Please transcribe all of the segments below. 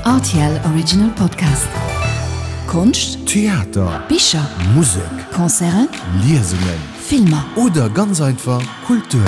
Rtl Original Podcast. Konscht, Theater, Bicher, Musek, Concerten, Liesungen, Filmer. Oder ganz einfach Kultur.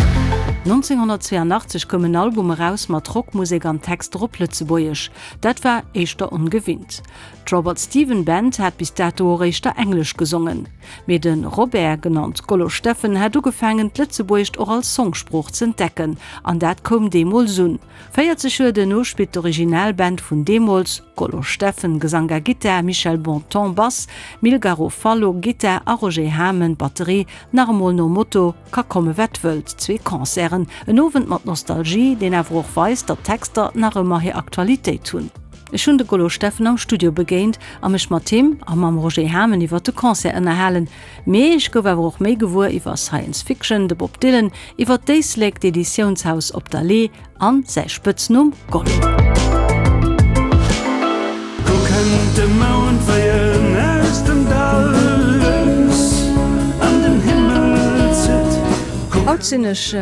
1982 koum en Album eraus mat Rockmusek an Texter op Lëtzebuergesch. Dat war éischter ongewinnt. D'Robert Steven Band hat bis dato och éischter Englesch gesongen. Mee de Robert, genannt Gollo Steffen, hat ugefaangen d'Lëtzebuergescht och als Songsprooch z'entdecken an dat koum deemools un. 40 Joer duerno spillt d'Originalband vun deemools, Gollo Steffen, Gesank a Gittar, Michel Bonton, Bass, Mil Garofalo, Gittar, a Roger Hamen, Batterie, nach emol nom Motto Ka komme wat wëllt, zwee Concerten, en Owend mat Nostalgie, deen awer och weist, datt d'Texter nach ëmmer hir Aktualitéit hunn. Ech hunn de Gollo Steffen am Studio begéint a mech mat him a mam Roger Hamen iwwer de Concert ënnerhalen. Mee ech gouf awer och méi gewuer iwwer Science Fiction, de Bob Dylan, iwwer d'Éislek, d'Editiounshaus Op der Lee an säi Spëtznumm Gollo. Do kënnt de Mound wéi en aus dem Dall lues an den Himmel zitt. Haut sinn ech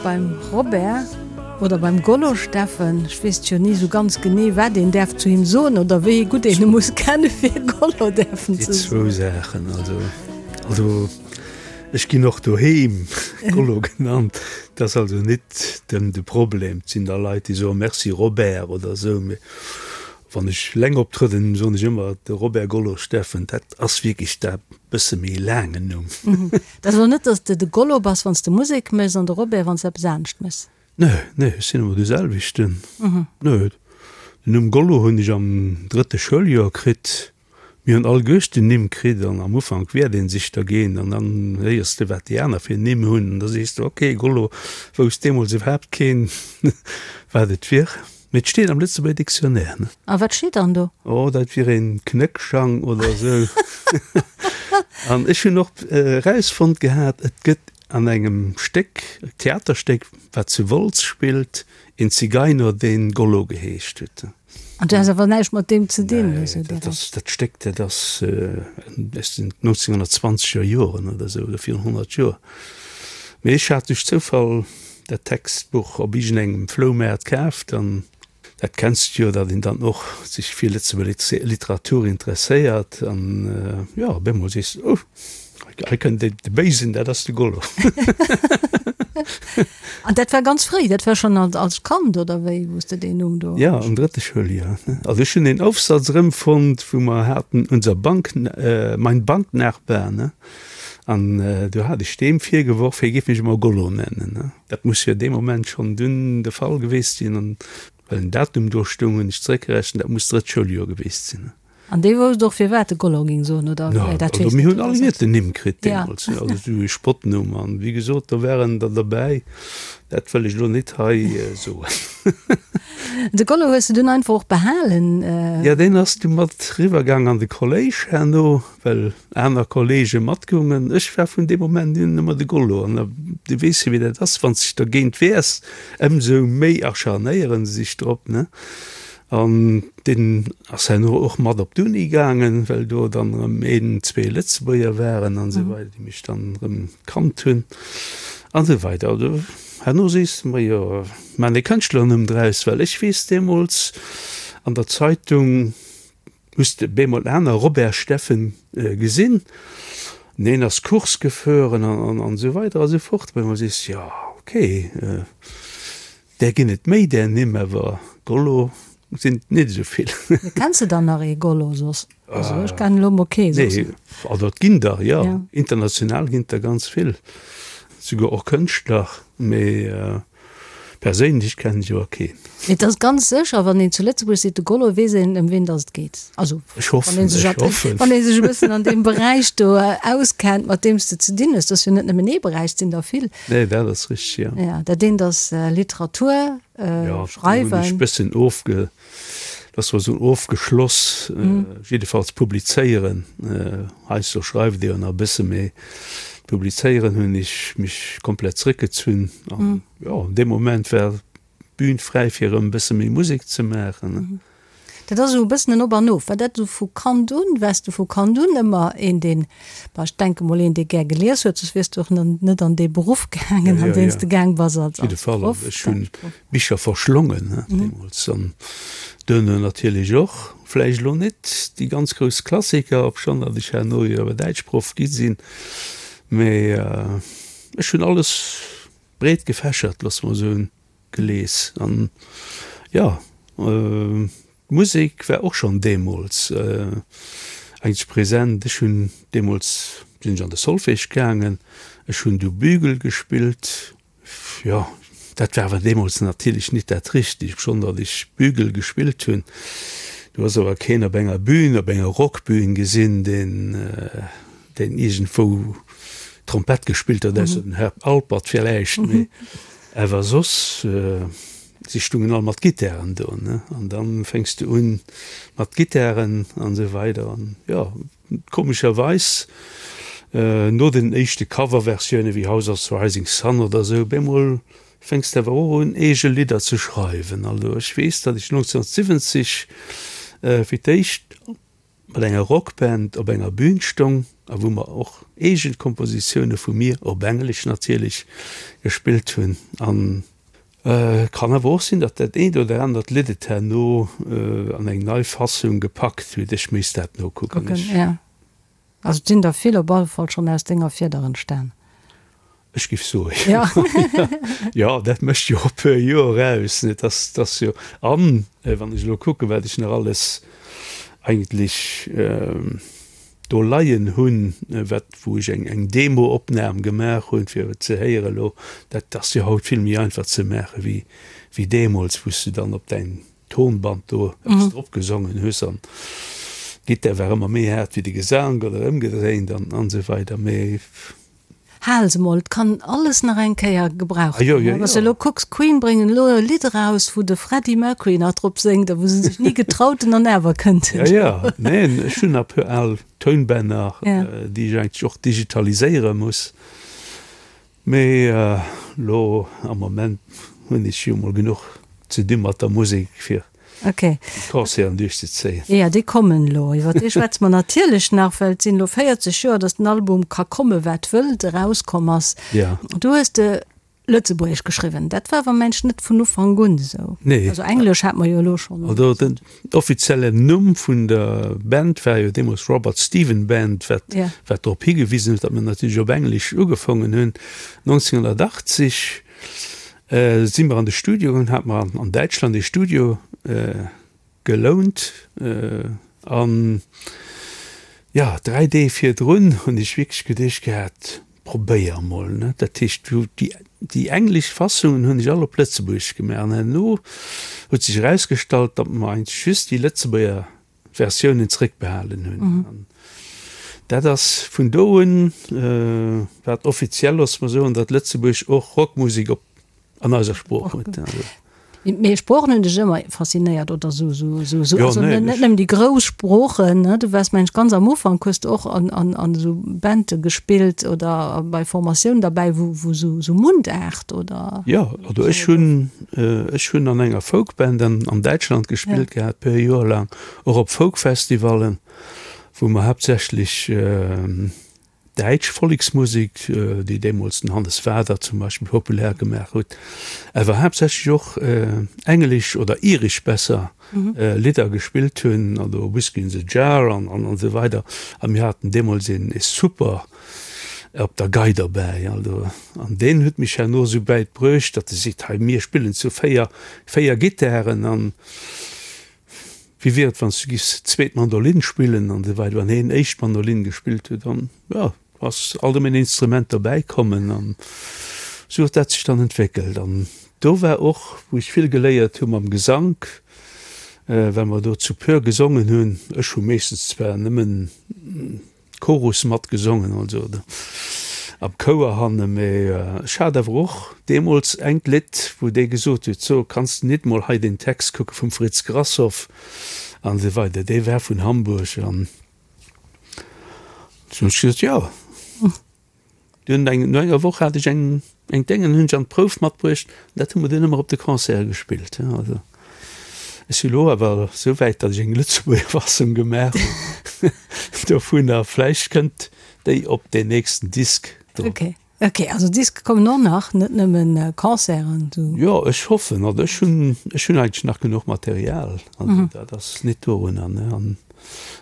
beim Robert oder beim Gollo Steffen. Ech weess jo ni sou ganz genee wat een däerf zu him soen oder wéi gutt een e muss kenne fir Gollo däerfen ze soen. Déi zwou Saachen, also also ech ginn och doheem Gollo genannt, dat ass also nit den de Problem. Et sinn da Leit déi soe Merci Robert oder esou, mee wann ech eleng optrëdden, soen ech ëmmer de Robert Gollo Steffen. Dat ass wierklech dat bësse méi laangen Numm. Dat ass elo net, datt s de de Gollo bass, wann s de Musek méchs, an de Robert, wann s de eppes anescht méchs? Nee, nee, ech sinn ëmmer de selwechten. Nee, den Numm Gollo hunn ech am drëtte Schouljoer kritt. Mir hunn alleguerten Nimm kritt an am Ufank wiert ee sech dergéint an dann héiers de, wat déi aner fir Nimm hunn an da sees de, ok, Gollo, wousst deemools iwwerhaapt keen, wat et wier. Mee et steet am Lëtzebuerger Dictionnaire, ne? A wat steet dann do? Oh, dat wier een Knéckschang oder esou. An ech hunn och erausfonnt gehat, et gëtt an engem Stéck, Theaterstéck, wat zu Wolz spillt, een Zigeiner, deen Gollo geheescht huet. An du has awer näischt mat deem ze dinn? Nee, dat ass, dat Stéck, dat ass aus den 1920er Joren oder esou, oder virun 100 Joer. Mee ech hat duerch Zoufall dat Textbuch op iergendengem Floumaart kaaft an dat kenns de jo, datt een dann och sech fir Lëtzebuerger Literatur interesséiert an jo, op eemol sees de, oh, hei kënnt de Béisen, dat ass de Gollo. An dat war ganz fréi, dat war schonn als Kand oder wéi, wou s de deen Numm do. Jo, am drëtte Schouljoer. Also ech hunn een Aufsatz erëmfonnt, wou mer haten unser Bank, mein Banknachbar, ne? An do hat ech deem virgeworf, hie géif mech ëmmer Gollo nennen. Dat muss jo dee Moment schonn dunn de Fall geweest sinn. An well en Datum do stoung, hunn ech zeréckgerechent, dat muss d'drëtt Schouljoer geweest sinn. An dee wousst och, firwat e Gollo géing soen, oder? Jo, also mir hunn alleguerten Nimm kritt deemools, also esou e Spottnumm. An wéi gesot, do waren der derbäi, dat wëll ech elo net hei soen. De Gollo hues de dunn einfach och behalen? Jo, deen ass du mat riwwergaang an de Kolléisch herno. Well aner Kollege matgoungen. Ech war vun deem Moment un ëmmer de Gollo. An du weess jo, wéi dat ass, wann s de dech dergéint wehrs, ëmsou méi acharnéiere se sech drop, ne? An deen ass herno och mat op d'Uni gaangen, well do dann erëm een, zwee Lëtzebuerger waren an esou weider, déi mech dann erëm kannt hunn an esou weider. Also herno sees de mer, jo, maan e Kënschtlernumm draus, well ech weess deemools an der Zeitung, Hues de bemol aner Robert Steffen gesinn? Neen ass Course gefueren an esou weider a sou fort. Op eemol sees de, jo ok, där ginn et méi där Nimm, awer Gollo sinn et net esou vill. Mee kenns de dann nach ee Gollo soss? Also ech kennen elo mol kee soss. Nee, also et ginn der, jo. International ginn et der ganz vill, souguer och Kënschtler, mee Perséinlech kennen ech awer keen. Et ass ganz sécher, wann een zu Lëtzebuerg seet de Gollo, weess een ëm ween datt et geet. Also Ech hoffen, wann ee sech, ech hoffen. Wann ee sech e bëssen an deem Beräich do auskennt, mat deem s de ze dinn hues. Dat ass jo net nëmmen ee Beräich, et sinn der vill. Nee, dat ass richteg, jo. Ja, dat eent ass Literatur, Ja, do hunn ech e bëssen ofge, dat war esou ofgeschloss, jiddefalls publizéieren. Heiansdo schreift ee jo nach e bësse, mee publizéieren hunn ech mech komplett zréckgezunn. An jo, dee Moment war d'Bün fräi fir erëm e bësse méi Musek ze maachen. Dat ass esou e bëssen en Op an Of. War dat esou vu Kand un? Waars du vu Kand un ëmmer een, deen, bah, ech denke mol een, dee gär gelies huet, soss wiers du och net an dee Beruff gaangen, an deen s de gaang bass als Op jidde Fall. Proff. Ech hunn Bicher verschlongen deemools an duerno natierlech och. Vläicht elo net déi ganz grouss Klassiker, obschonn datt ech herno jo awer Däitschproff gi sinn, mee ech hunn alles breet gefächert, loosse mer soen, gelies. An jo, d'Musek war och schonn deemools eigentlech present. Ech hunn deemools, sinn ech an de Solfège gaangen, ech hunn du Bügel gespillt, Jo, dat war awer deemools natierlech nit dat Richtegt, obschonn datt ech Bügel gespillt hunn. Du hues awer keen op enger Bühn, op enger Rockbühn gesinn, deen, deen iergendwou Trompett gespillt huet, ausser den Herb Alpert villäicht, mee awer soss, si stungen all mat Gittaren do, ne? An da fänks de un mat Gittaren an esou weider an jo. Komescherweis, no den éischte Coverversioune wéi House of the Rising Sun oder esou, bemol fänks de awer och un eege Lidder ze schreiwen. Also ech weess, datt ech 1970 fir d'éischt mat enger Rockband op enger Bühn stong a wou mer och eege Kompositioune vu mir, op Englesch natierlech, gespillt hunn. An Kann awer och sinn, datt dat eent oder anert Lidd et herno an eng nei Fassung gepackt huet. Ech misst dat nokucken. Kucken, ja. Also et sinn der vill op alle Fall schonn aus denger Fieder entstan. Ech giff soe jo. Jo, dat mécht jo e puer Joer aus, ne? Dass, dass jo. An wann ech elo kucken, wat ech nach alles eigentlech do leien hunn, wat wou ech eng eng Demo-Opnam gemaach hunn, fir et ze héieren elo, dat ass jo haut vill méi einfach ze maache wéi wéi deemools, wou s du dann op däin Tonband do eppes drop gesongen hues an d'Gittar war ëmmer méi haart wéi de Gesank oder ëmgedréint an an esou weider. Mee Hal se mol, et kann alles nach eng Kéier gebraucht ginn. Wann s de elo kucks, Queen bréngen elo e Lidd eraus, wou de Freddie Mercury nach drop séngt a wou se sech ni getraut hunn an awer kënnt en. Jo, jo, neen, ech hunn nach e puer al Tounbänner, déi ech eigentlech och digitaliséiere muss. Mee elo am Moment hunn ech jo mol genuch ze di mat der Musek, fir Okay. Déi Concerten duerchzezéien. Jo, déi kommen elo. Iwwer déi schwätze mer natierlech nach, well et sinn elo 40 Joer, datt den Album Ka komme wat wëllt erauskomm ass. Ja. Du hues de Lëtzebuergesch geschriwwen. Dat war awer mensch net vun Ufank un esou. Nee. Also Englesch hat mer jo elo schonn. Also den offiziellen Numm vun der Band war jo deemools Robert Stephen Band, wat, Ja. wat drop higewisen huet, datt mer natierlech op Englesch ugefongen hunn. 1980 Si mer an de Studio gaangen, hate mer an Däitschland ee Studio gelount an jo, 3 Deeg virdrun hunn ech wierklech geduecht gehat, probéier emol, ne. Dat heescht, déi déi englesch Fassungen hunn ech all op Lëtzebuergesch gemaach an herno huet sech erausgestallt, datt mer eigentlech just déi Lëtzebuerger Versiounen zréckbehalen hunn. An dat ass vun do un, wat offiziell, loosse mer soen, datt Lëtzebuerg och Rockmusek op an eiser Sprooch huet. Mee Sproochen hunn dech ëmmer faszinéiert, oder sou, sou, sou, sou, also net nëmmen déi grouss Sproochen, ne? Du waars, mengen ech, ganz am Ufank hues de och an, an, an esou Bande gespillt oder bei Formatiounen derbäi, wou, wou sou, sou Mundaart oder? Jo, also ech hunn, Ech hunn an enger Folkband an Däitschland gespillt gehat, puer Joer laang, och op Folkfestivallen, wou mer haaptsächlech däitsch Volleksmusek, déi deemools den Hannes Wader zum Beispill populär gemaach huet, awer haaptsächlech och englesch oder iresch besser Lidder gespillt hunn, also Whiskey in the Jar an esou weider. A mir haten deemools een super op der Gei derbäi, also, an deen huet mech herno esou wäit bruecht, datt e seet, hei mir spillen zu 4, 4 Gittaren an wéi wier et wann s du giffs zweet Mandolinn spillen an esou weider, wann heen éischt Mandolinn gespillt huet an jo, ass alt ëm en Instrument derbäi kommen an esou huet dat sech dann entwéckelt an do war och wou ech vill geléiert hu mam Gesank, well mer do zu puer gesongen hunn, ech hu meeschtens zwar nëmmen Chorus matgesongen, also am Chouer hanne, mee ech hat awer och deemools engt Lidd, wou dee gesot huet, so, kanns de nit mol hei deen Text kucke vum Fritz Grashoff an esou weider, dee war vun Hamburg an du hunn ech gesot, jo. Dunn eng, no enger Woch hat ech eng, eng Déngen, hunn ech an d'Prouf matbruecht, an dat hu mer dunn ëmmer op de Concerte gespillt, also. Ech si lo awer esou wäit, datt ech eng Lëtzebuerger Fassung gemaach hunn dovunner. Vläicht kënnt déi op deen nächsten Disk drop. Ok, ok, also Diske kommen och nach, net nëmmen Concerten sou. Jo, ech hoffen. Also ech hunn, ech hunn eigentlech nach genuch Material. Also dat ass net dorunner, ne. An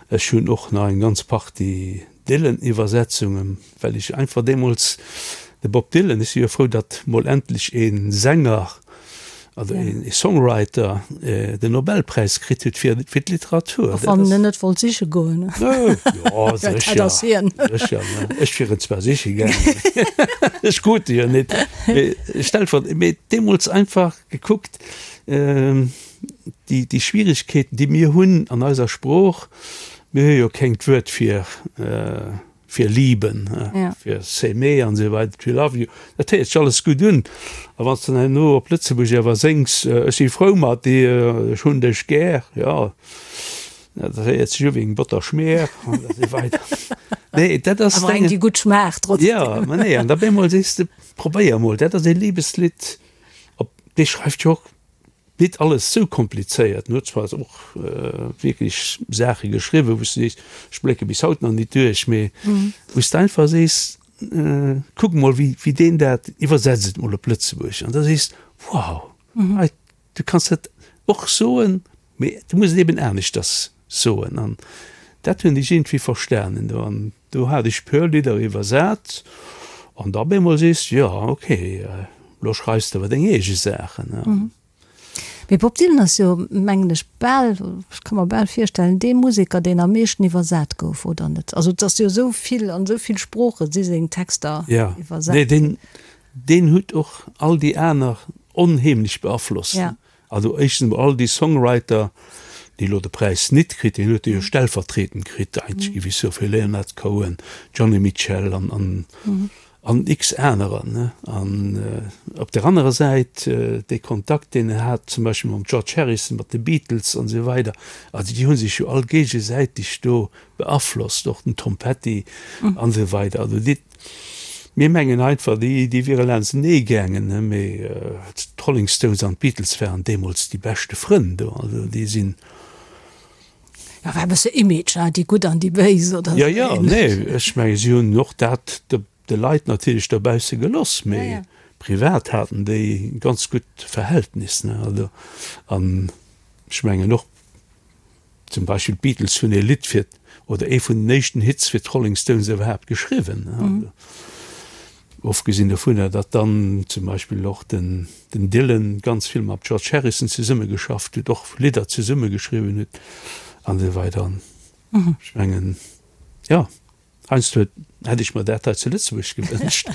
ech hunn och nach eng ganz Partie Dylan-Iwwersetzungen, well ech einfach deemools de Bob Dylan, ech si jo frou, datt mol endlech ee Sänger, also ee Songwriter den Nobelpräis kritt huet fir fir d'Literatur. Och wann en net wollt siche goen. Jo, sécher, sécher, ne. Ech wier en zwar siche gaangen, ech krut e jo net, mee stellvertretend, mee deemools einfach gekuckt, déi déi Schwierigkeeten, déi mir hunn an eiser Sprooch, Mir hu jo kéngt Wuert fir fir lieben, fir s'aimer an esou weider, to love you, dat héiert sech alles gutt un. A wann s de dann herno op Lëtzebuergesch awer séngs, ech si frou mat dir, ech hunn dech gär, jo, dat héiert sech u wéi eng Botterschmier an esou weider. Nee, dat ass. Awer eng, déi gutt schmaacht trotzdem. Jo, ma nee, an da bemol sees de, probéier emol, dat ass ee Libeslidd, op dee schreift jo och Nit alles sou komplizéiert. En huet zwar och wierklech Saache geschriwwen, wou s de sees, ech blécke bis haut nach nit duerch, mee wou s de einfach sees, kuck mol wéi wéi deen dat, iwwersetz et mol op Lëtzebuerg an da sees de, wow, hei, du kanns dat och soen, mee du muss et eben aneschters soen. An dat hunn ech iergendwéi verstanen do. An Do hat ech puer Lidder iwwersat an da bemol sees de, jo ok, lo schreifs de awer deng eege Saachen. Mee Bob Dylan ass jo, mengen ech, bal, ech ka mer bal virstellen, dee Museker, deen am meeschten iwwersat gouf, oder net? Also et ass jo esou vill, an esou vill Sprooche si seng Texter iwwersat ginn. Jo, nee, deen, deen huet och all déi aner onheemlech beaflosst. Also éischtens emol all déi Songwriter, déi elo de Präis nit kritt, deen huet e jo stellvertretend kritt, eigentlech géif ech soen, fir Leonard Cohen, Joni Mitchell an, an, an x anerer, ne. An op där anerer Säit dee Kontakt, deen en hat zum Beispill mam George Harrison, mat de Beatles an esou weider, also déi hu sech jo all géigesäiteg do beaflosst, och den Tom Petty an esou weider. Also déi. Mir mengen einfach, déi wiere laanstenee gaangen, mee d'Rolling Stones an d'Beatles waren deemools déi beschte Frënn do. Also déi sinn. Jo, war e bësse Image, hein, déi Gutt an déi Béis oder esou. Jo, jo, nee, ech menge si hunn och dat de Leit natierlech dobausse geloss, mee privat haten déi ganz gutt Verhältnis, ne. Also an ech mengen och. Zum Beispill d'Beatles hunn ee Lidd fir, oder ee vun den éischten Hits fir d'Rolling Stones iwwerhaapt geschriwwen. Ofgesinn dovunner, datt dann zum Beispill och den Dylan ganz vill mam George Harrison zesummegeschafft huet, och Lidder zesummegeschriwwen huet an esou weider. Ech mengen, jo. Heiansdo hätt ech mer dat hei zu Lëtzebuerg gewënscht.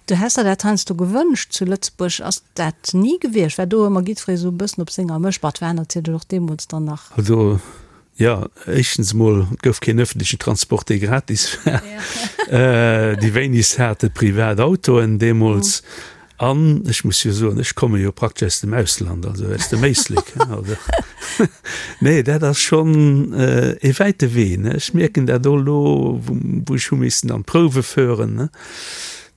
Du häss der dat heiansdo gewënscht zu Lëtzebuerg. Ass dat ni gewiescht? War do ëmmer jiddweree sou e bëssen op senger Mësch? Bah, et war natierlech och deemools dann nach. Also, jo, éischtens emol, et gouf keen ëffentlechen Transport, dee gratis war. Déi wéinegst hate privat Autoen deemools. An ech muss jo soen, ech komme jo praktesch aus dem Ausland, also aus dem Éislek. Also, nee, dat ass schonn ee wäite Wee, ne. Ech mierken dat och elo, wou ech hu missen an d'Prouwe fueren, ne.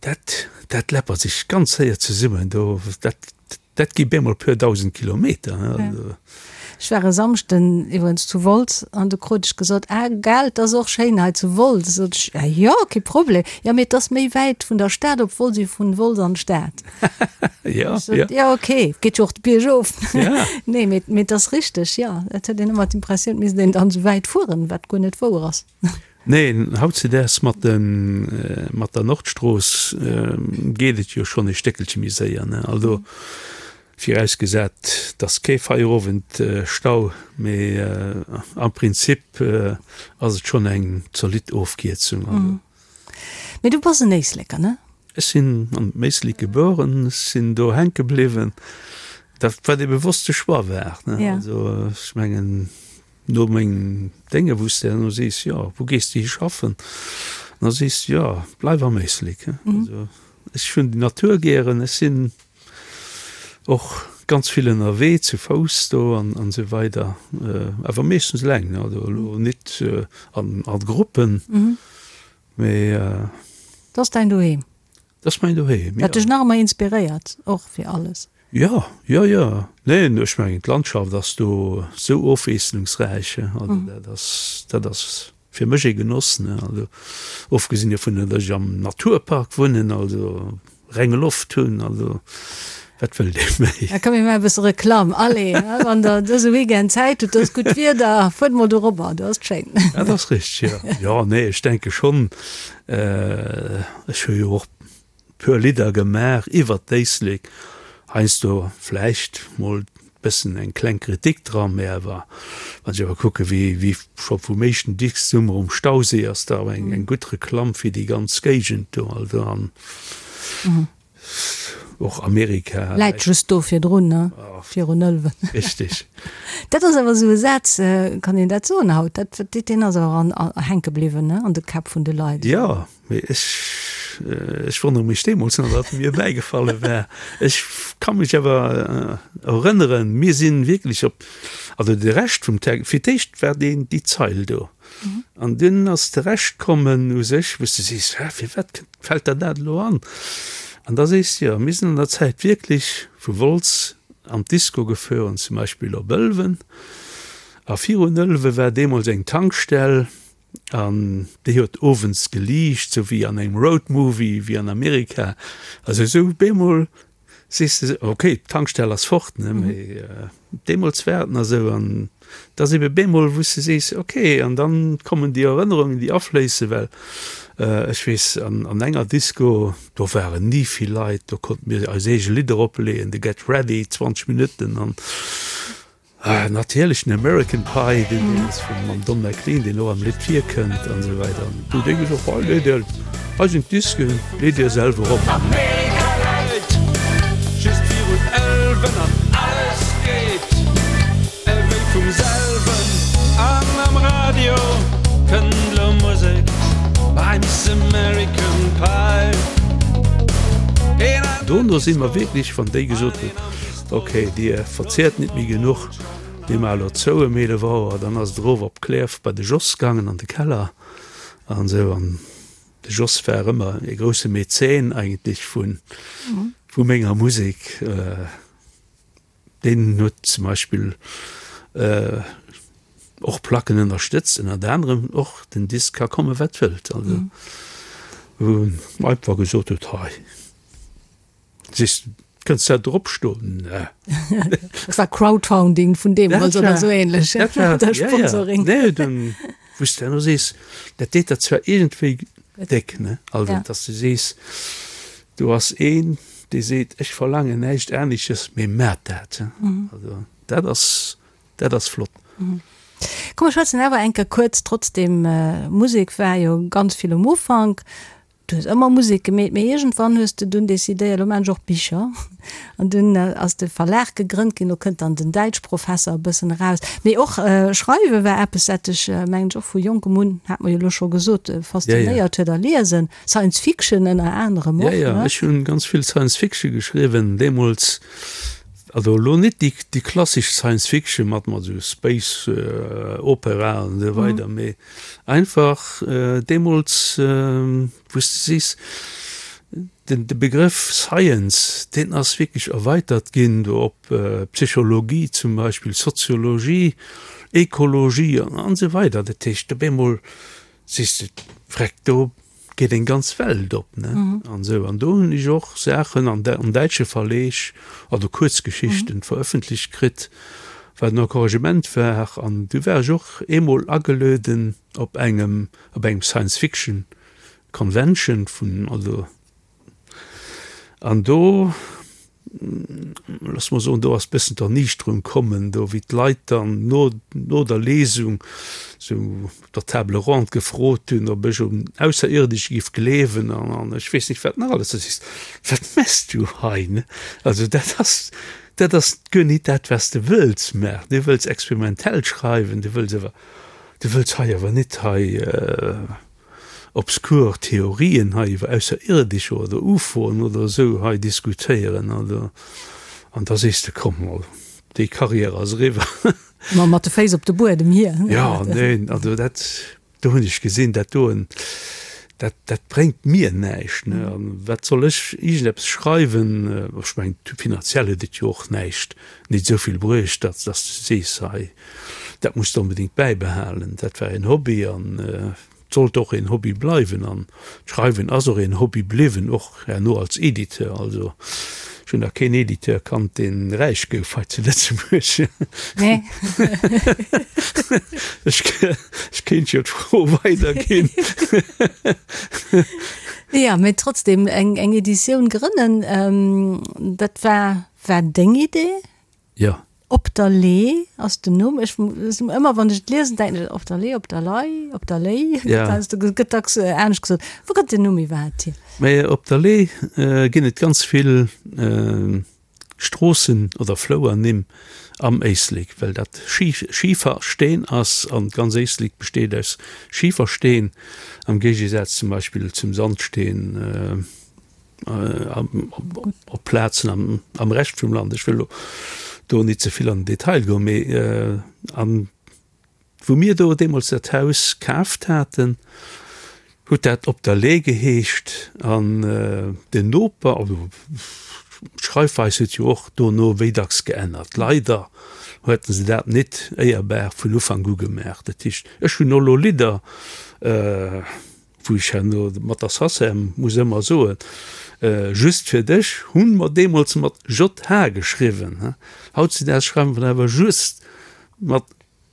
Dat, dat läppert sech ganz séier zesummen do. Dat, dat gi bemol puer 1.000 Kilometer, ne. Also. Ech war e Samschden iwwregens zu Wolz an du krut ech gesot, ah gell, 't ass och schéin hei zu Wolz. Sot ech, ah jo, kee Problem. Jo, mee 't ass méi wäit vun der Stad op Wolz wéi vun Wolz an d'Stad. Jo, Ech sot, jo. Jo, okay, geet jo och de Bierg of. Ja. Nee, mee, mee 't ass richteg, jo. Et huet een ëmmer d'Impressioun, 't misst een dann esou wäit fueren, wat guer net wouer ass. Nee, hautzedaags mat de, mat der Nordstrooss geet et jo schonn e Stéckelche méi séier, ne. Also. Virausgesat et ass kee Feierowendstau, mee am Prinzip ass et schonn eng zolidd Ofkierzung. Mee du bass en Éisleker, ne? Ech sinn am Éislek gebueren, ech sinn do hänke bliwwen, dat wat ee bewosste Choix war. Also ech mengen no mengem Dénge wou s de herno sees, jo wou gees de hi schaffen, da sees de jo bleif am Éislek. Also ech hunn déi Natur gären, ech sinn Och ganz vill ënnerwee, zu Fouss do an esou weider, awer meeschtens eleng, also elo nit a Gruppen, mee. Dat ass däin Doheem? Dat ass mäin Doheem, jo. Dat dech nach ëmmer inspiréiert, och fir alles? Jo, jo, jo. Neen, ech mengen d'Landschaft ass do sou ofwiesslungsräich, also dat ass, dat ass fir mech ee Genoss, ne. Also ofgesinn dovun, datt ech am Naturpark wunnen, also reng Loft hunn, also wat wëllt ee méi? Da komm mir maache e bësse Reklamm, allez, wann der dëse Weekend Zäit hutt, do ass gutt Wieder, fuert mol dorobber, do ass et schéin. Dat ass richteg, jo. Jo, nee, ech denke schonn, ech hu jo och puer Lidder gemaach iwwert d'Éislek, heiansdo vläicht mol bëssen eng kleng Kritik dran, mä awer wann ech awer kucke wéi wéi scho vum éischten Disk Summer um Stausee ass da awer eng eng gutt Reklamm fir déi ganz Géigend do, also an och Amerika. Läit just do virdrun, ne? Virun Ëlwen. Richtig. Dat ass awer esou e Saz, kann een dat soen haut? Dat, deen ass awer an hänke bliwwen, ne, an de Käpp vun de Leit. Jo. Mee ech, ech wonnere mech deemools nach, wat mir bäigefalle war. Ech ka mech awer erënneren, mir si wierklech op, also de Rescht vum Text, fir d'éischt war deen, déi Zeil do. An dunn ass de Rescht kommen u sech, wou s de sees, Hä, firwat kënnt, fält der dat elo an? An da sees de, jo, mir sinn an der Zäit wierklech vu Wolz an d'Disco gefueren, zum Beispill op Ëlwen. A virun Ëlwe war deemools eng Tankstell. An déi huet owends geliicht, sou wéi an engem Road Movie, wéi an Amerika. Also esou bemol sees de, ok, d'Tankstell ass fort, ne, mee deemools war et nach esou. An et ass ebe bemol, wou s de sees, ok, an dann kommen déi Erënnerungen, déi afléissen, well ech weess, an an enger Disco, do waren ni vill Leit, do konnte mir eis eege Lidder opleeën, de Get Ready, 20 Minutten an. Natierlech den American Pie, deen deen ass vum mam Don McLean, deen och am Lidd virkënnt an esou weider. An du déi gesot, hei leet dir, hei sinn d'Disken, leet dir selwer op. Amerika läit just virun Ëlwen an alles geet ewéi vum selwen an am Radio kënnt lo Musek bei Miss American Pie. Dono si mer wierklech, wann déi gesot hunn, Ok, dir verziert nit méi genuch, mir maache lo zou ëm 11 Auer. Dann ass et erof op Klierf bei de Jos gaangen an de Keller an esou. An de Jos war ëmmer e grousse Mäzen eigentlech vu vu menger Musek. Deen huet zum Beispill och Placken ënnerstëtzt, ënnert anerem och den Disk Ka komme wat wëllt, also wou en einfach gesot huet, hei. Siehst, kënns dat drop stoen? Ne. Dat war Crowdfounding vun deemools oder esou ähnlech. Dat war, ja, ja. Sponsoring. Nee, dann, wou s de herno sees, dat deet der zwar iergendwéi déck, ne? Also, ja. dass du sees, do ass een, dee seet, ech verlaangen näischt anesches, mee maat dat. Mhm. Also, dat ass, dat ass flott. Mhm. Komm, mer schwätzen awer eng Kéier kuerz trotzdem, Musek war jo ganz vill um Ufank. Du hues ëmmer Musek gemeet, mee iergendwann hues de dunn decidéiert, elo maan ech och Bicher. An dunn ass de Verlag gegrënnt ginn, do kënnt dann den Däitschprofesser e bëssen eraus. Mee och Schreiwe war eppes, dat dech, mengen ech, och vu jonkem un, hat mer jo elo scho gesot, faszinéiert huet a Liesen, Science Fiction ënner anerem och, ne? Jo, jo, ech hunn ganz vill Science Fiction geschriwwen deemools. Also elo net déi, déi klassesch Science Fiction mat, mat esou Space Opera an esou weider, mee Einfach deemools, wou s de sees, den de Begrëff Science, deen ass wierklech erweitert ginn do op Psychologie zum Beispill, Soziologie, Ekologie an esou weider. Dat heescht, op eemol sees de, Vreck, do geet eng ganz Welt op, ne? An esou. An do hunn ech och Saachen an an däitsche Verleeg, also Kuerzgeschichten verëffentlecht kritt, wat en Encouragement war. An du war ech och eemol agelueden op engem op engem Science Fiction Convention vun, also an do, looss mer soen, do ass bëssen d'Erniichterung kommen, do wéi d'Leit dann no no der Lesung sou op der Table ronde gefrot hunn, ob ech un Ausserierdesch giff gleewen an an ech weess nicht wat nach alles. Da sees de, wat mess du hei, ne? Also dat ass dat ass guer nit dat wat s de wëlls maachen. Du wëlls experimentell schreiwen, du wëlls awer du wëlls hei awer nit hei obskur Theorien hei iwwer Ausserierdescher oder UFOen oder esou hei diskutéieren. Also, an da sees de, komm mol, déi Karriär ass eriwwer. Ma mat de Féiss op de Buedem hier. Jo, neen, also dat, do hunn ech gesinn, dat doen, Dat, dat bréngt mir näischt, ne. An wat soll ech iergendeppes schreiwen? Ech mengen, finanziell huet et jo och näischt, nit esou vill bruecht, datt, datt s de sees, hei, dat muss de onbedéngt bäibehalen. Dat war een Hobby an et sollt och een Hobby bleiwen. An d'Schreiwen ass och een Hobby bliwwen, och herno als Editeur. Also ech hunn nach keen Editeur kannt, dee räich gouf hei zu Lëtzebuerg. Nee. Ech ech kéint jo d'Fro weiderginn. Jo, mee trotzdem, eng eng Editioun grënnen, dat war war deng Idee? Jo. Op der Lee ass den Numm. Ech ëmmer wann ech et liesen, denken ech Op der Lee, op der Lei, op der Léi. Ja. Gëtt dacks anescht gesot. Wou kënnt den Numm iwwerhaapt hier? Mä op der Lee ginn et ganz vill Stroossen oder Flouernimm am Éislek, well dat Schifersteen ass an d'ganz Éislek besteet aus Schifersteen, am Géigesaz zum Beispill zum Sandsteen. Op Plazen am Rescht vum Land. Ech wëll elo do nit ze vill an den Detail goen, mee an wou mir do deemools dat Haus kaaft haten, huet dat Op der Lee geheescht an den Noper, also d'Schreifweis huet jo och dono wéi dacks geännert, leider hueten se dat nit éierbar vun Ufank u gemaach. Dat heescht, ech hunn elo Lidder, Wou ech herno mat der Sacem muss ëmmer soen, Just fir dech hunn mer deemools mat JH geschriwwen, hautzedaags schreiwe mer awer just mat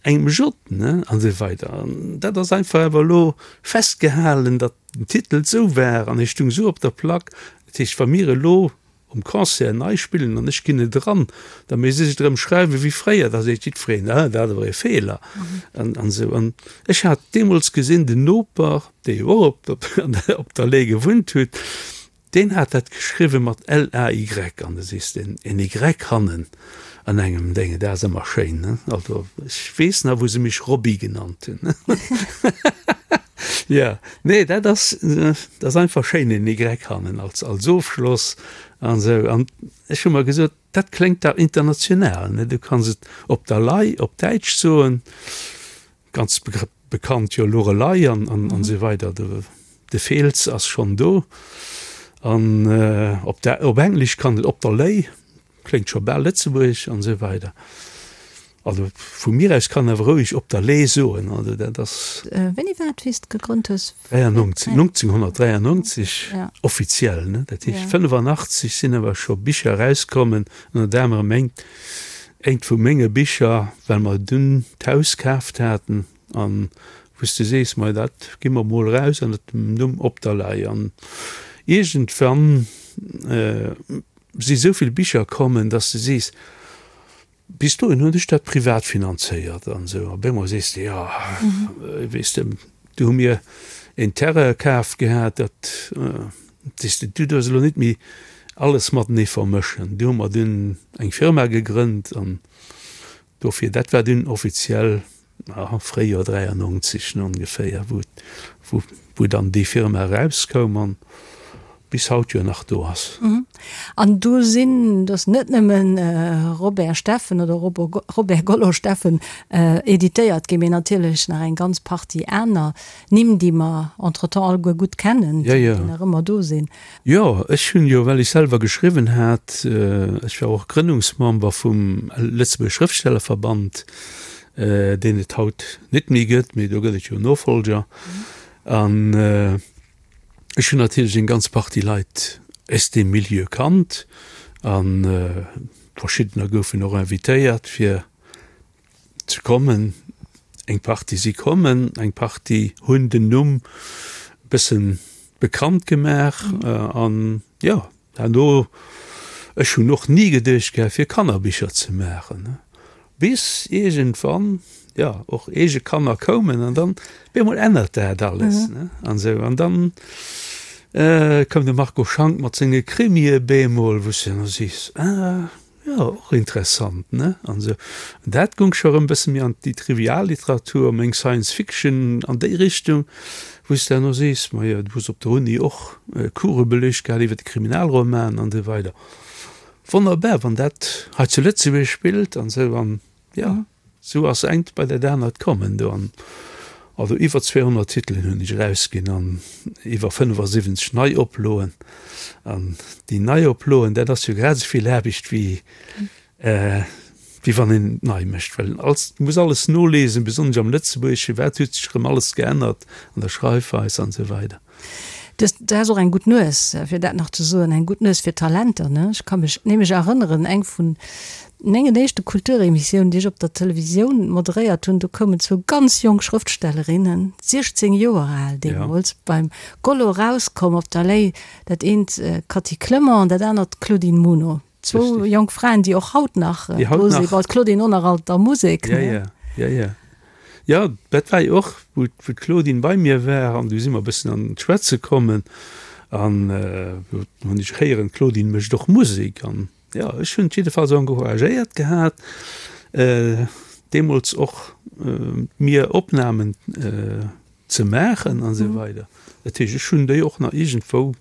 engem J, ne, an esou weider. An dat ass einfach awer elo festgehalen, datt den Titel esou war an e stung esou op der Plack. Dat heescht, wa mir elo um Concert nei spillen an ech ginn et eran, da misst ech et erëm schreiwe wéi fréier, da seet jiddwereen, ah, dat ass awer e Feeler an esou. An ech hat deemools gesinn, den Noper, dee jo och op op der Lay gewunnt huet, deen hat dat geschriwwe mat L-A-Y an da sees de, en Y hannen an engem Dénge, dat ass ëmmer schéin, ne? Also ech weess nach, wou se mech Robby genannt hunn. Jo, nee, dat ass, dat ass einfach schéin, en Y hannen als, als Ofschloss an esou. An ech hu mer gesot, dat kléngt dach international, ne? Du kanns et op der Lei op Däitsch soen, ganz bekannt jo Lorelei an, an, an esou weider, de, de Feels ass schonn do. An op der, op Englesch kann et op der Lay. Kléngt scho bal lëtzebuergesch an esou weider. Also vu mir aus kann awer roueg op der Lee soen, also dat ass. Wéini war et wéi s de gegrënnt hues? 93, 1993 offiziell, ne? Dat heescht 85 sinn awer scho Bicher erauskommen, ënnert anerem engt, eent vu menge Bicher, well mer dunn d'Haus kaaft haten an wou s de sees, mei dat gi mer mol eraus ënnert dem Numm Op der Lay an iergendwann, si sou vill Bicher kommen, dass de sees, bis dohin hunn ech dat privat finanzéiert an esou. Op eemol sees de, jo, weess de, du hu mir een Terrain kaf gehat, dat, sees de, du duerfs elo net méi alles matenee vermëschen. Du hu mer dunn eng Firma gegrënnt an dofir, dat war dunn offiziell Fréijoer 93 ongeféier, wou, wou dann déi Firma erauskoum an bis haut jo nach do ass. An do sinn, do ass net nëmmen Robert Steffen oder Robert Gollo Steffen editéiert ginn, mee natierlech nach eng ganz Partie aner Nimm, déi mer entretemps alleguer gutt kennen, déi nach ëmmer do sinn. Jo, ech hunn jo, well ech selwer geschriwwen hat, ech war och Grënnungsmember vum Lëtzebuerger Schrëftstellerverband, deen et haut net méi gëtt, mee do gëtt et jo Nofolger. An ech hunn natierlech eng ganz Partie Leit aus deem Milieu kannt a verschiddener goufen och invitéiert fir ze kommen. Eng Partie si kommen, eng Partie hunn den Numm e bëssen bekannt gemaach an jo, herno, ech hunn och ni geduecht gehat fir Kannerbicher ze maachen, bis iergendwann, jo, och eege Kanner koumen an dann op eemol ännert dat alles, ne, an esou. An dann koum de Marco Schank mat senge Krimie bemol, wou s de dann sees, ah, Jo, och interessant, ne? An esou. An dat goung scho erëm e bësse méi an déi Trivialliteratur, meng Science Fiction an déi Richtung, wou s de herno sees, majo, du hues op der Uni och Course beleegt gehat iwwer de Kriminalroman an esou weider. Wonnerbar, wann dat hei zu Lëtzebuerg spillt an esou. An jo, esou ass engt bei dat anert kommen do. An. Also iwwer 200 Titelen hunn ech erausginn an iwwer 75 Neioploen. An déi Neioploen, dat ass jo grad esou vill Aarbecht wéi wéi wann een et nei mécht, well als du muss alles nolesen, besonnesch am Lëtzebuergesche, wat huet sech erëm alles geännert an der Schreifweis an esou weider. Du hues, du has och eng gutt Nues, fir dat nach ze soen, eng gutt Nues fir Talenter, ne? Ech ka mech nämlech erënneren, eng vun mengen éischte Kulturemissiounen, déi ech op der Televisioun moderéiert hunn, do koumen zwou ganz jonk Schrëftstellerinnen, 16 Joer al deemools, beim Gollo erauskomm op der Lay, dat eent d'Cathy Clement an dat anert d'Claudine Muno. Zwou jonk Fraen, déi och haut nach do sinn, bon, d'Claudine och nach alt der Musek, ne? Ja, ja, ja, ja. Jo, dat war jo och, wou d'Claudine bei mir war an du si mer e bëssen an d'Schwätze kommen an do hunn ech héieren, d'Claudine mécht och Musek an jo, ech hunn jiddefalls encouragéiert gehat, deemools och mir Opnamen ze maachen an esou weider. Dat heescht, ech hunn déi och nach iergendwou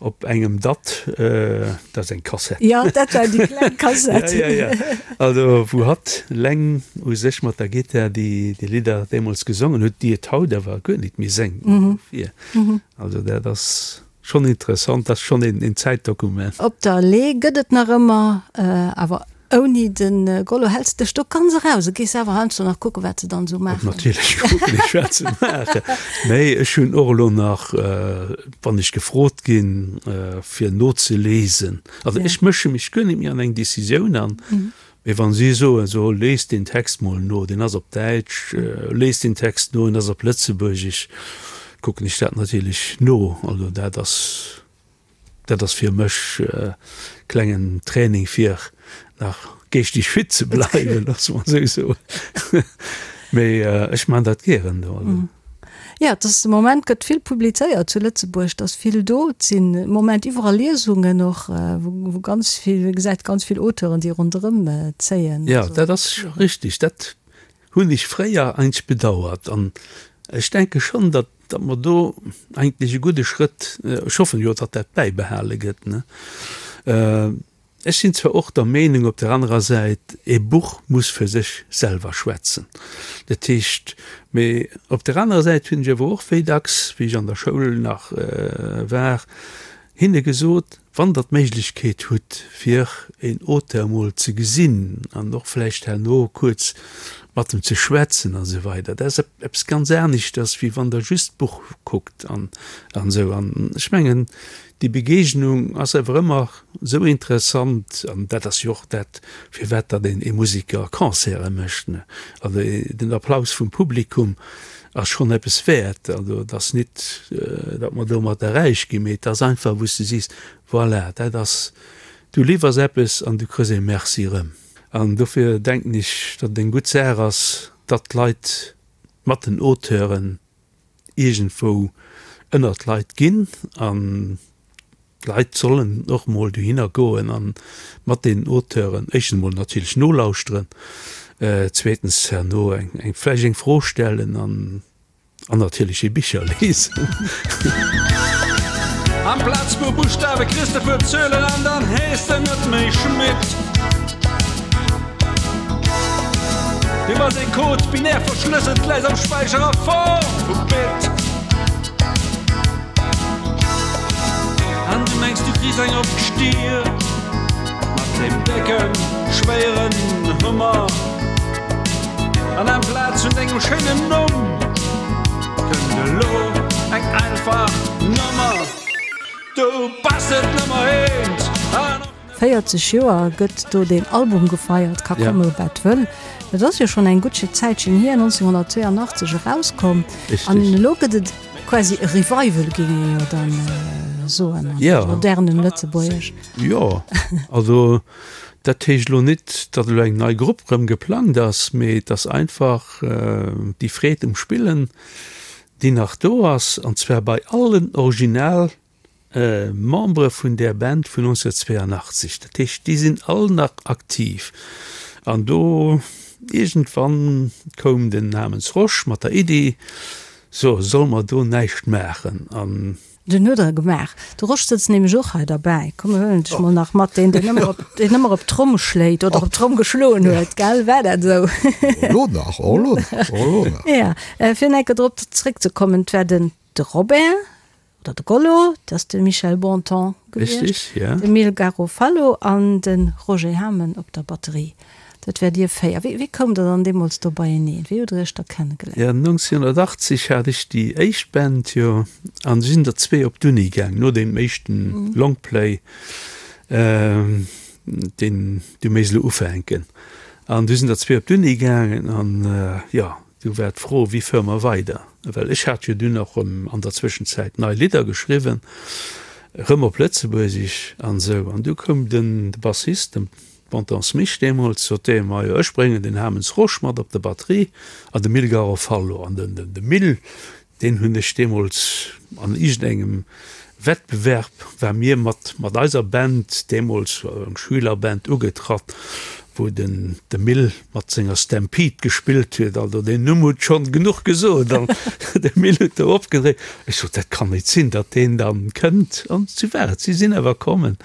op engem DAT, dat ass eng Kassett. Jo, dat war déi kleng Kassett. Ja, ja, ja. Also wou hatt eleng u sech mat der Gittar déi Lidder deemools gesongen huet, déi et haut awer guer nit méi séngt. Dofir, also dat ass schonn interessant, dat ass schonn een Zäitdokument. Op der Le'h gëtt et nach ëmmer, awer Ouni de Gollo häls dech do ganz eraus a gees awer heiansdo nach kucken, wat se dann esou maachen. Natierlech kucken ech, wat se maachen. Mee ech hunn och elo nach, wann ech gefrot ginn, fir nozeliesen, also ech mësche mech guer net méi an eng Decisioun an, mee wa si soen, so lies deen Text mol no, deen ass op Däitsch, lies deen Text no, en ass op Lëtzebuergesch, kucken ech dat natierlech no. Also dat ass. Dat ass fir mech e klengen Training fir nach geeschteg fit ze bleiwen, loosse mer esou soen. Mee ech man dat gären do. Jo, et ass de Moment gëtt vill publizéiert zu Lëtzebuerg, et ass vill do. Et sinn de Moment iwwerall Liesungen och, wou ganz vill, ee gesäit ganz vill Auteuren, déi ronderëm zéien. Jo, dat ass richtig. Dat hunn ech fréier eigentlech bedauert an ech denke schonn, datt, datt mer do eigentlech e gudde Schrëtt, ech hoffen jo, datt dat bäibehale gëtt, ne. Ech sinn zwar och der Meenung op der anerer Säit, e Buch muss fir sech selwer schwätzen, dat heescht, mee op der anerer Säit hunn ech awer och wéi dacks, wéi ech an der Schoul nach war, hinne gesot, Wann Der d'Méiglechkeet hutt, fir een Auteur emol ze gesinn an och vläicht herno kuerz mat em ze schwätzen a sou weider, dat ass eppes ganz aneschters, wéi wann Der just d'Buch kuckt an esou. An ech mengen, déi Begegnung ass awer ëmmer esou interessant an dat ass jo och dat, firwat datt een ee Museker Concerte mécht, ne. Also den Applaus vum Publikum ass schonn eppes wäert. Also et ass nit, datt mer domatter räich ginn, mee et ass einfach, wou s de sees, voilà, dat ass, du liwwers eppes an du kriss ee Merci erëm. An dofir denken ech, datt et eng gutt Saach ass, datt d'Leit mat den Auteuren iergendwou ënnert d'Leit ginn an D'Leit sollen och mol dohinner goen a mat deenen Auteuren éischtens emol natierlech nolauschteren, zweetens herno eng vläicht eng Fro stellen an an natierlech hir Bicher lesen. Amplaz puer Buschtawe kriss de puer Zuelen an dann hees de net méi Schmitt. Du bass ee Code, binär verschlësselt, läis am Späicher a Form vu Bit. An du mengs du kriss eng op d'Stier mat deem décken, schwéieren Hummer. An amplaz vun dengem schéinen Numm kënnt elo eng einfach Nummer. Du bass net Nummer eent an och. 40 Joer gëtt do deen Album gefeiert, ka komme wat wëll. Dat ass jo schonn eng gutt Zäitchen hier, 1982 erauskomm. An elo gëtt et quasi e Revival, géing ee jo dann soen an modernem Lëtzebuergesch. Jo, also dat heescht elo net, datt elo eng nei Grupp rëm geplangt ass, mee et ass einfach déi Freed um Spillen, déi nach do ass, an zwar bei allen Original Membere vun där Band vun 1982, dat heescht déi sinn all nach aktiv. An do iergendwann koum den Namens Rosch mat der Iddi, so solle mer do näischt maachen? An. Den huet der gemaach. De Rosch sëtzt nämlech och hei derbäi. Komm mir huelen dech mol nach mat, deen deen ëmmer op, deen ëmmer op d'Tromm schléit oder op d'Tromm geschloen huet, gell? War dat esou? Elo nach, och elo nach, och elo nach. Ja, fir nach eng Kéier drop zréckzekommen, et war den de Robert oder de Gollo, dat ass de Michel Bontemps gewiescht, Richtig, ja. de Mil Garofalo an de Roger Hamen op der Batterie. Dat wäert Dir 4. Wéi, wéi koumt Der dann deemools do beieneen? Wéi hutt Der Iech da kennegeléiert? Jo, 1980 hat ech déi éischt Band, jo, an du sinn der zwee op d'Uni gaang, no deem éischten Longplay, deen du méis elo ufänken. An du sinn der zwee op d'Uni gaangen an, jo, du war d'Fro, wéi fuere mer weider? Well ech hat jo dunn och erëm an der Zwëschenzäit nei Lidder geschriwwen, erëm op Lëtzebuergesch an esou. An du koum den Bassist, de Bontemps Mich deemools sot dee, Majo, ech bréngen den Hamens Rosch mat op der Batterie an de Mil Garofalo. An den, de Mil, deen hunn ech deemools an iergendengem Wettbewerb, war mir mat, mat eiser Band, deemools eng Schülerband, ugetratt, wou den, de Mil mat senger Stampede gespillt huet. Also deen Numm huet schonn genuch gesot. An de Mil huet do opgedréit. Ech sot, dat kann nit sinn, datt deen dann kënnt. An sou war et, si sinn awer kommen.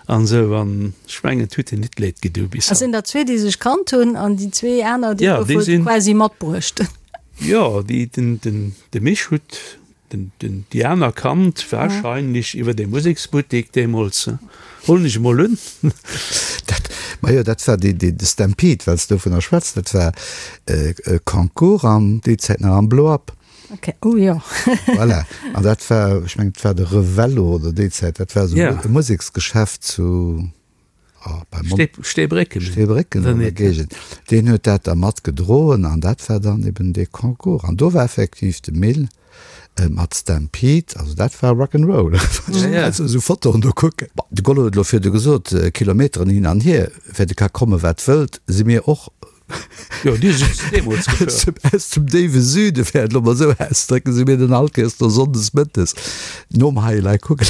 An esou, an ech mengen, et huet hir nit leed gedu bis Et haut. sinn der zwee, déi sech kannt hunn, an déi zwee aner, déi Ja, déi goufe sinn. quasi matbruecht. Jo, déi, den, den, de Mich huet den, den, déi aner kannt, wahrscheinlech iwwer dee Museksbuttek deemools, huelen ech emol un. Dat, majo, dat war dee, dee, de Stampede, well s de dovunner schwätz, dat war e Concours an déi Zäit nach am Blow-Up. Okay, oh jo. Voilà. An dat war, ech mengen, et war de Revello oder déi Zäit, dat war esou Ja. e Museksgeschäft zu, oh, bei Mont. Stee, Steebrécken. Steebrécken Oder an der net? Géigend. Deen huet dat da mat gedroen an dat war dann eben dee Concours. An do war effektiv de Mil mat Stampede, also dat war Rock 'n' Roll. Ja, ja. Also esou Fotoen do kucken. Bon, de Gollo huet elo virdu gesot, Kilometeren hin an hier, fir de ka komme wat wëllt, si mir och Jo, dir sidd deemools gefuer. Aus dem déiwe Süde, fir et elo mol esou auszedrécken, si mir dann all Kéiers do sonndes mëttes nom Hei elei kucken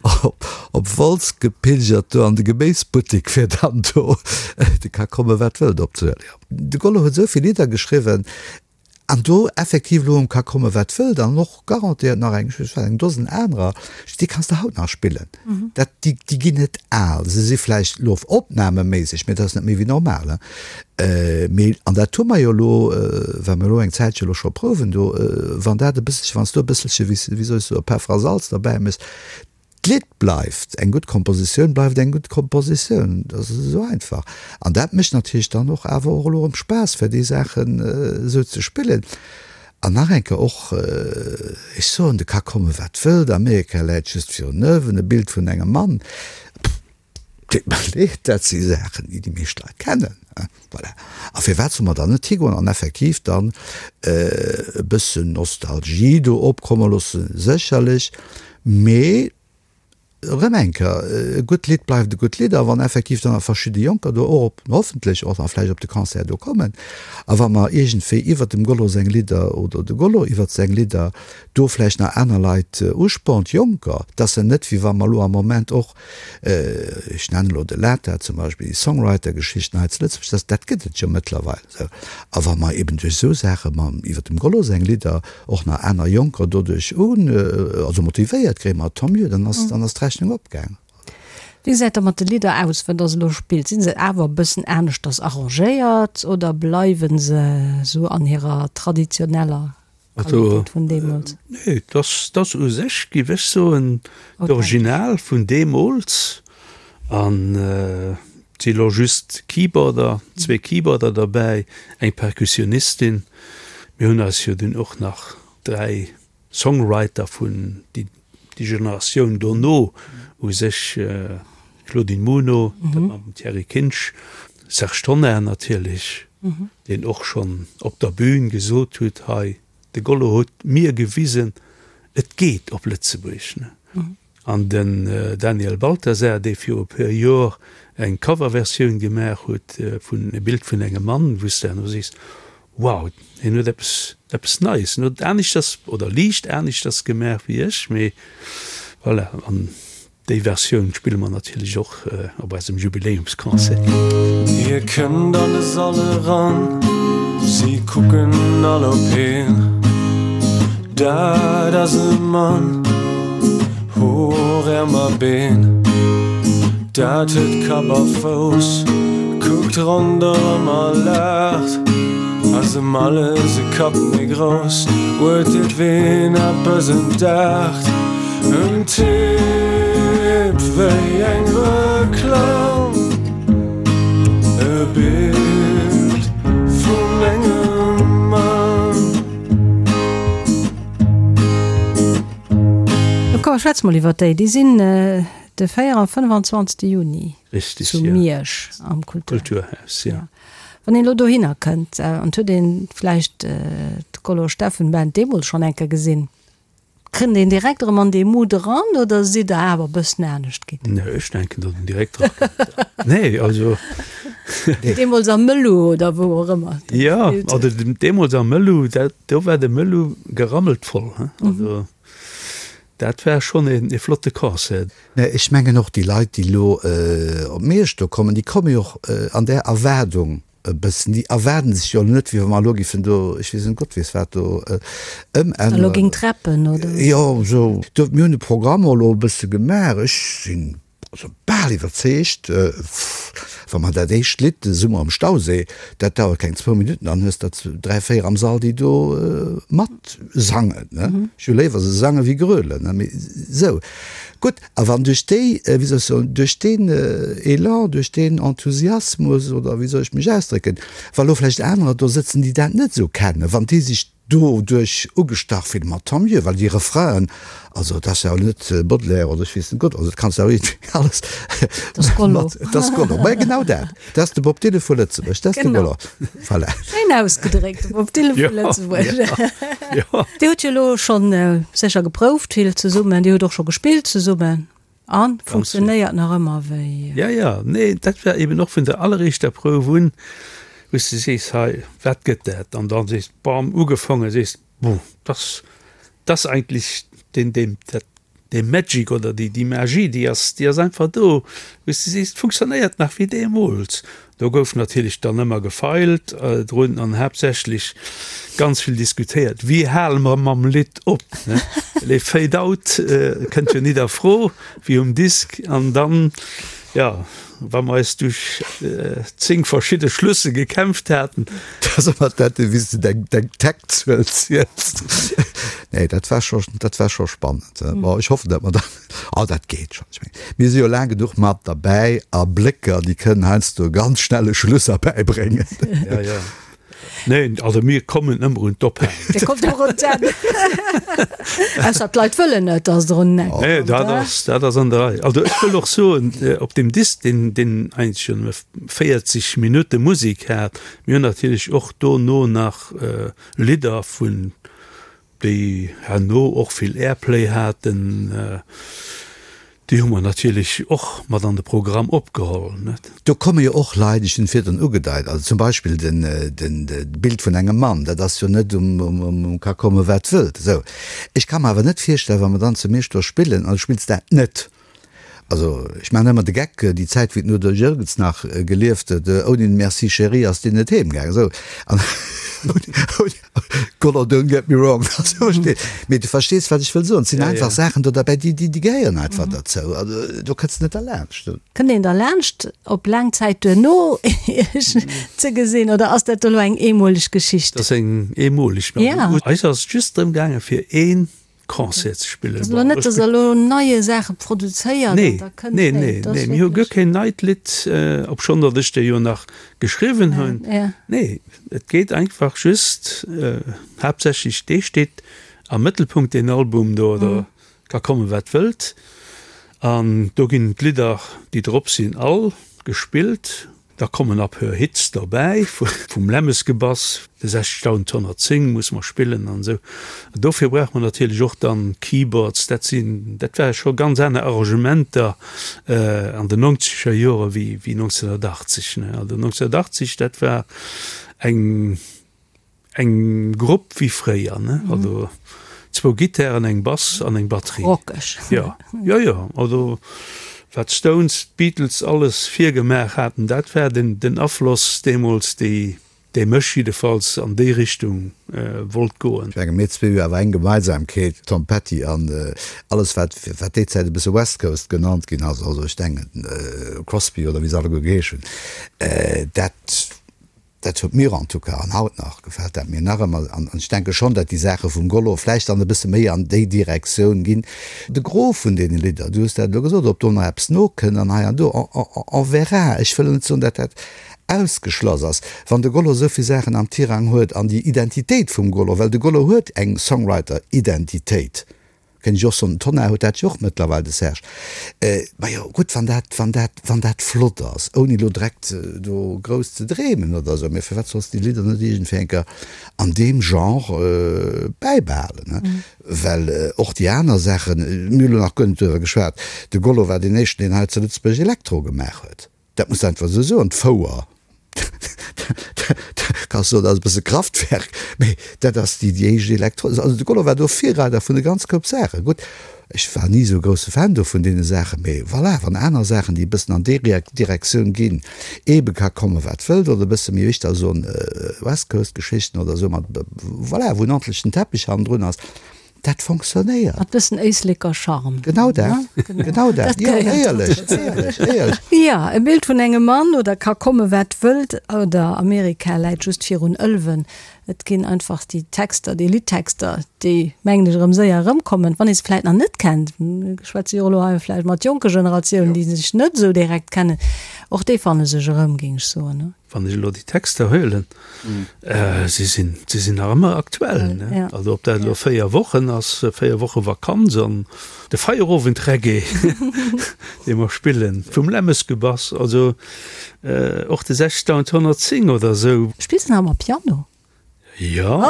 op, op Wolz gepilgert, do an de Geméisbuttek, fir dann do de ka komme wat wëllt opzehuelen. Jo, de Gollo huet esou vill Lidder geschriwwen, An do effektiv elo um ka komme wat wëllt an och garantéiert nach eng, ech weess eng Dosen anerer, déi kanns de haut nach spillen. Dat, déi, déi ginn net al. Se si vläicht elo opnameméisseg, mee dat ass net méi wéi normal, hein. Mee, an dat hu mer jo elo, well mer elo eng Zäitche elo scho prouwen do, wann dat e bësselche, wann s du e bësselche, wéi wéi soll ech soen, Peffer a Salz derbäi méchs, D'Lidd bleift eng gutt Kompositioun, bleift eng gutt Kompositioun. Dat ass esou einfach. An dat mécht natierlech dann och awer och elo erëm Spaass, fir déi Saachen esou ze spillen. An nach eng Kéier och, ech soen, de ka komme wat wëllt, Amerika läit just virun Ëwen, e Bild vun engem Mann, Deet mer leed, dat si Saachen, déi déi meescht Leit kennen. Voilà. A firwat solle mer dann net higoen an effektiv dann e bëssen Nostalgie do opkomme loossen? Sécherlech, mee erëm eng Kéier, e gutt Lidd bleift e gutt Lidd. A wann effektiv dann nach verschidde Jonker do och op, hoffentlech och nach vläicht op de Concert do kommen, a wa mer iergendwéi iwwert dem Gollo seng Lidder oder de Gollo iwwert seng Lidder do vläicht nach aner Leit uspornt, Jonker, dass se net, wéi wa mer elo am Moment och, ech nennen elo de Lata zum Beispill, déi Songwriter-Geschichten hei zu Lëtzebuerg, dat, dat gëtt et jo mëttlerweil esou. A wa mer eben duerch esou Saache mam, iwwer dem Gollo seng Lidder och nach aner Jonker doduerch un, also motivéiert kréien, ma tant mieux, dann ass, dann ass d'Rechnung opgaang. Wéi gesäit da mat de Lidder aus, wat der se elo spillt? Sinn se awer e bëssen aneschters arrangéiert oder bleiwe se esou an hirer traditioneller Also, Qualitéit vun deemools? nee, dass dass u sech, géif ech soen, d'Original vun deemools. An et si lo just Keyboarder, zwee Keyboarder derbäi, eng Perkussionistin. Mir hunn eis jo dunn och nach dräi Songwriter vun déi déi Generatioun dono u sech, Claudine Muno, dat mam Thierry Kinsch, Serge Tonnar natierlech, deen och schonn op der Bühn gesot huet, hei, de Gollo huet mir gewisen, et geet op Lëtzebuerg. An den Daniel Balthasar, dee viru e puer Jor eng Coverversioun gemaach huet vun E Bild vun engem Mann, wou s de herno sees, wow, hien huet eppes, eppes Neies, en huet aneschters oder liicht aneschters gemaach wéi ech, mee voilà. An Déi Versioun spille mer natierlech och op eisem Jubiläumsconcert. Hie kënnt an de Sall eran, si kucken all op hien. Dat ass e Mann, Hoer, Äerm a Been, dat huet Kapp a Fouss, kuckt ronderëm a laacht, ass ëm alles e Kapp méi grouss, urteelt ween eppes entdeckt, en Typ wéi eng Reklamm, e Bild vun engem Mann. Komm, schwätze mol iwwer déi. Déi sinn de 4 a 25. Juni zu Miersch am Kulturhaus. Ja. Wann een elo dohinner kënnt an et huet ee vläicht d'Gollo Steffen Band deemools schonn eng Kéier gesinn, kënnt een direkt erëm an dee Mood eran oder sidd Der awer e bëssen anescht ginn? Nee, ech denken, datt een direkt erakënnt. Nee, also. Deemools am Mëllu oder wou och ëmmer. Jo, also deemools am Mëllu, dat, do war de Mëllu gerammelt voll, he. Also dat war schonn een, ee flotte Concert. Nee, ech mengen och déi Leit, déi elo op Miersch do kommen, déi komme jo och an där Erwaardung e bëssen. Déi erwaarden sech jo elo net, wéi wa mer elo giffen do, ech weess net, Gott weess wat do ëmänneren. Elo géing d'Rappen, oder? Jo, esou. Do, mir hunn de Programm och elo e bësse gemaach. Ech sinn Also bal iwwerzeegt, wa mer dat éischt Lidd, de Summer am Stausee, dat dauert keng zwou Minutten, dann hues der dräi, véier am Sall, déi do mat sangen. Ech hu léiwer se sange wéi grölen, mee esou. Gutt, a wann duerch déi, wéi soll ech soen, duerch deen Elan, duerch deen Enthusiasmus, oder wéi soll ech mech ausdrécken, wa lo vläicht anerer do sëtzen, déi dat net esou kennen, wann déi sech doduerch ugestach fillen, ma tant mieux, well déi Refrainen, also dat ass jo net Baudelaire oder ech weess net Gott, also dat kanns de awer iergendwéi alles Dat ass Gollo. mat, dat ass Gollo, ma genau dat, dat ass de Bob Dylan vu Lëtzebuerg, dat ass de Gollo, voilà. Schéin ausgedréckt, de Bob Dylan vu Lëtzebuerg. Jo. Dir hutt jo elo schonn sécher geprouft vill zesummen, Dir hutt och scho gespillt zesummen a funktionéiert nach ëmmer wéi. Jo, jo, nee, dat war eben och vun der alleréischter Prouf un, wou s de sees, hei, wat gëtt dat? An dann sees, bam, ugefaangen, sees, bon, dass, dass eigentlech deen, deen, dat, dee Magic oder déi, déi Magie, déi ass, déi ass einfach do, wou s de sees, et funktionéiert nach wéi deemools. Do gouf natierlech dann ëmmer gefeilt drun an haaptsächlech ganz vill diskutéiert, wéi hale mer mam Lidd op, ne? Well ee Fade Out kënnt jo nit a Fro wéi um Disk. An dann, jo, wa mer eis duerch 10 verschidde Schlüsse gekämpft haten. Dat ass ëmmer dat, wéi s de deng, deng Taktzuel ziels. Nee, dat war scho, dat war scho spannend. Bon, ech hoffen, datt mer dann. Oh, dat geet schonn. Ech mengen, mir si jo laang genuch mat derbäi a Blécker, déi kënnen heiansdo ganz schnell e Schluss erbäibréngen. Ja, ja. Neen, also mir kommen ëmmer un d'Ophalen. Dir kommt ëmmer un d'Enn. Ausser d'Leit wëllen net, dass der un d'Enn kommt. Nee, dat ass, dat ass an der Rei. Also ech wëll och soen, op deem Disk, deen, deen eigentlech jo nëmme 40 Minutte Musek hat, mir hunn natierlech och dono nach Lidder vun déi herno och vill Airplay haten, déi hu mer natierlech och mat an de Programm opgeholl. Do komme jo och Leit, ech hunn et virdrun ugedeit, also zum Beispill den, den, d'Bild vun engem Mann, dat ass jo net um, um, um ka komme wat wëllt. Esou. Ech ka mer awer net virstellen, wa mer dann zu Miersch do spillen an du spills dat net, Also, ech maachen ëmmer de Geck, déi Zäit, wéi den Udo Jürgens nach gelieft huet, ouni den Merci chérie ass deen net heem gaangen. Esou, an ouni, Goller, don't get me wrong, also versteet, mee du verstees, wat ech wëll soen. Et sinn einfach Saachen do derbäi, déi, déi gehéieren einfach derzou. Also, do kënns de net derlaanscht. Kënnt een derlaanscht, op laang Zäit duerno Iech ze gesinn, oder ass dat elo eng eemoleg Geschicht? Dat ass eng eemoleg. Eis ass et just drëm gaangen, fir een Concert ze spillen. Ass elo net, dass der elo neie Saache produzéiert an da kënnt. Nee, nee, nee, mir hu guer keen neit Lidd, obschonn datt ech der jo nach geschriwwen hunn. Nee, et geet einfach just haaptsächlech, dee steet am Mëttelpunkt, deen Album do, oder ka kommen, wat wëllt. An do ginn d'Lidder, déi drop sinn, all gespillt. Da kommen a puer Hits derbäi, vum Lämmesgebass, de 60110 musse mer spillen an esou. An dofir brauche mer natierlech och dann Keyboards. Dat sinn, dat ware scho ganz aner Arrangementer an den nonzeger Jore wéi 1980, ne. Also 1980, dat war eng. Eng Grupp wéi fréier, ne? Also zwou Gittären, eng Bass an eng Batterie. Rockeg. Jo, jo, jo. Also wat d'Stones, d'Beatles alles virgemaach haten, dat war den, den Afloss deemools, déi. Dee mech jiddefalls an déi Richtung wollt goen. Ech menge mir zwee hu awer eng Gemeinsamkeet, Tom Petty an alles wat wat déi Zäit e bësse West Coast genannt ginn ass, also ech denken Crosby oder wéi se alleguer geheesch hunn, dat dat huet mir en tout cas an haut nach gefält dat mir nach ëmmer an ech denke schonn, datt déi Saache vum Gollo vläicht dann e bësse méi an déi Direktioun ginn. De Gros vun deene Lidder, du hues dat elo gesot, ob do nach eppes nokënnt an hei an do, on verra. Ech wëll net soen, datt dat ausgeschloss ass, wann de Gollo esou vill Saachen am Tirang huet an déi Identitéit vum Gollo, well de Gollo huet eng Songwriter-Identitéit, kéint ech och soen, den Tonnar huet dat jo och mëttlerweil, de Serge, majo gutt, wann dat, wann dat, wann dat flott ass, ouni elo direkt do grouss ze dreemen oder esou, mä firwat solls de déi Lidder net iergendwéi eng Kéier an deem Genre bäibehalen, ne? Well och déi aner Saachen, mir hu lo nach guer net doriwwer geschwat, de Gollo war deen éischten, deen hei zu Lëtzebuerg Elektro gemaach huet. Dat muss de einfach esou soen. D'Fouer, kanns soen, dat ass e bësse Kraftwerk, mee dat ass déi éischt Elektro. Also de Gollo war do Virreider vun e ganz Koup Saachen. Gutt, ech war ni esou e grousse Fan do vun deene Saachen, mee voilà, wann aner Saachen, déi e bëssen an déi Direktioun ginn, eebe ka komme wat wëllt, oder e bësse méi éischter soen West Coast Geschichten oder esou mat, voilà, wou en ordentlechen Teppich hannendrun ass, Dat fonctionnéiert. Mat bëssen Éisleker Charme. Genau dat, genau dat. Jo, éierlech, éierlech, éierlech. Jo, e Bild vun engem Mann, oder ka komme wat wëllt, oder Amerika läit just virun Ëlwen. Et ginn einfach déi Texter, déi Liddtexter, déi, mengen ech, erëm séier erëmkommen, wann ee se vläit nach net kennt. Mir schwätze jo elo hei vläicht mat jonke Generatiounen, déi sech net esou direkt kennen. Och déi fanne sech erëm, géing ech soen. Wann ech elo déi Texter huelen, si sinn, si sinn nach ëmmer aktuell, ne? Also ob dat elo 4 Wochen ass, 4 Woche Vakanz an de Feierowend-Reggae, dee mer spillen, vum Lämmesgebass, also och de 6110 oder esou. Spills de nach ëmmer Piano? Jo,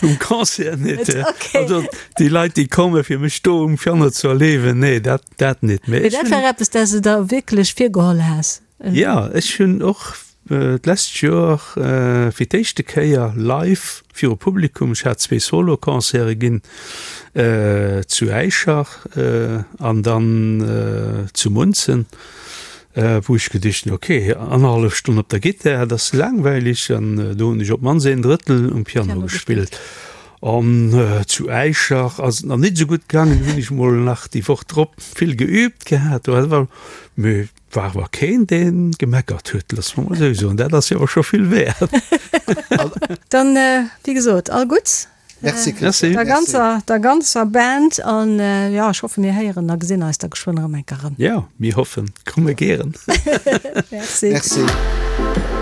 um Concert net. Also déi Leit, déi komme fir mech do um Piano ze erleewen, nee, dat, dat net. Mee dat war eppes, dat s de der wierklech virgeholl has? Jo, ech hunn och d'lescht Joer fir d'éischte Kéier live viru Publikum, ech hat zwee Solo-Concerte ginn, zu Äischer an dann zu Munzen, Wou ech geduecht hunn, ok, annerhallef Stonn op der Gittar, dat ass laangweilig, an do hunn ech op d'mannst een Drëttel um Piano gespillt. An zu Äischer ass et nach nit esou gutt gaangen, do hunn ech mol nach déi Woch drop vill geüübt gehat, do war mee war awer keen, dee gemeckert huet, loosse mer mol esou soen, dat ass jo awer scho vill wäert. Dann, wéi gesot, all Gutts Merci Christian. Der ganzer, der ganzer Band an jo, ech hoffe mir héieren a gesinn eis da geschwënn erëm eng Kéier erëm. Jo, mir hoffen, komme gären. Merci. Merci.